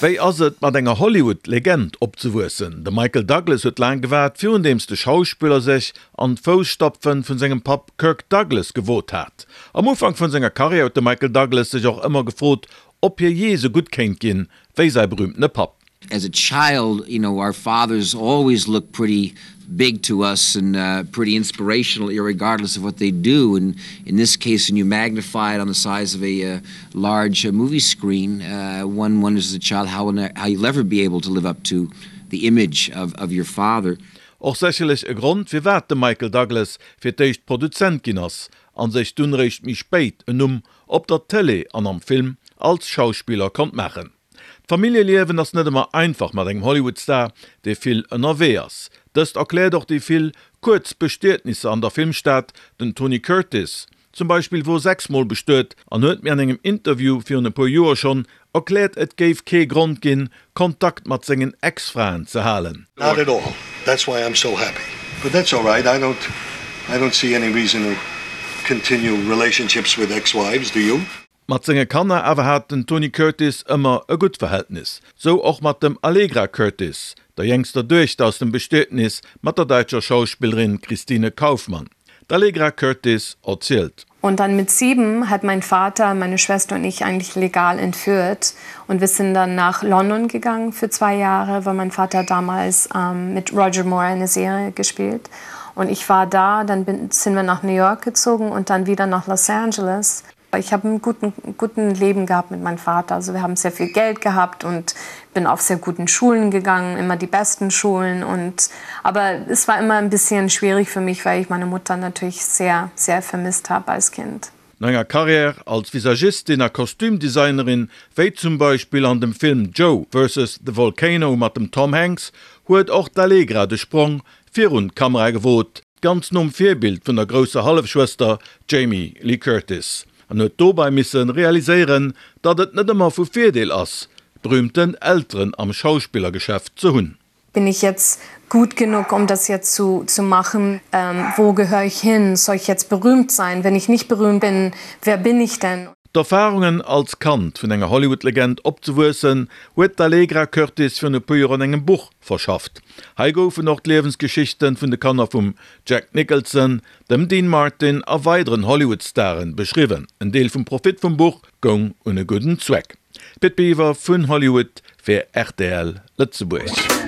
Wéi ass et, mat enger Hollywood-Legend opzewuessen? De Michael Douglas huet laang gewaart, virundeems de Schauspiller sech an d'Fousstapfen vun sengem Papp Kirk Douglas gewot hat. Am Ufank vun senger Karriär huet de Michael Douglas sech och ëmmer gefrot, ob hie jee sou gutt kéint ginn, wéi säi berüümtene Papp. As a child, you know, our fathers always look pretty big to us and pretty inspirational irregardless of what they do and in this case when you magnify it on the size of a large movie screen, one wonders as a child how how you'll ever be able to live up to the image of of your father. Och sécherlech e Grond firwat de Michael Douglas fir d'éischt Produzent ginn ass an sech dunn réischt méi spéit en Numm op der Tëlee an am Film als Schauspiller konnt maachen. D'Familljeliewen ass net ëmmer einfach mat engem Hollywood-Star, dee vill ënnerwee ass. Dëst erkläert och déi vill kuerz Bestietnisser an der Filmstad. Den Tony Curtis zum Beispill wor 6 mol bestuet an huet mir an engem Interview virun e puer Joer schonn erkläert, et géif kee Grond ginn, Kontakt mat sengen Ex-Fraen ze halen. Not at all, that's why I'm so happy, but that's all right, I don't I don't see any reason to continue relationships with ex-wives, do you? Mat senge Kanner awer hat den Tony Curtis ëmmer e gutt Verhältnis. Sou och mat dem Allegra Curtis, der jéngster Duechter aus dem Bestietnis mat der däitscher Schauspillerin Christine Kaufmann. D'Allegra Curtis erzielt. Und dann mit sieben hat mein Vater meine Schwester und ich eigentlich legal entführt und wir sind dann nach London gegangen für zwei Jahre, weil mein Vater damals ähm, mit Roger Moore eine Serie gespielt. Und ich war da, dann bin, sind wir nach New York gezogen und dann wieder nach Los Angeles. Ich habe einen guten, guten Leben gehabt mit meinem Vater. Also wir haben sehr viel Geld gehabt und bin auf sehr guten Schulen gegangen, immer die besten Schulen und aber es war immer ein bisschen schwierig für mich, weil ich meine Mutter natürlich sehr, sehr vermisst habe als Kind. No enger Karriär als Visagistin a Kostümdesignerin, wéi zum Beispill an dem Film Joe vs. The Volcano mat dem Tom Hanks, huet och d'Allegra de Sprong virun d'Kamera gewot, ganz nom Virbild vun der grousser Hallefschwëster Jamie Lee Curtis, an huet dobei misse realiséieren, datt et net ëmmer vu Virdeel ass, berühmten Elteren am Schauspillergeschäft ze hunn. Bin ich jetzt gut genug, um das jetzt zu, zu machen? Ähm, wo gehöre ich hin? Soll ich jetzt berühmt sein? Wenn ich nicht berühmt bin, wer bin ich denn? D'Erfarungen als Kand vun enger Hollywood-Legend opzewuessen, huet d'Allegra Curtis virun e puer Joer an engem Buch verschafft. Hei goufen och d'Liewensgeschichten vun de Kanner vum Jack Nicholson, dem Dean Martin a weideren Hollywood-Staren beschriwwen. En Deel vum Profit vum Buch goung un e gudden Zweck. Pit Biwer vun Hollywood fir rtl Lëtzebuerg.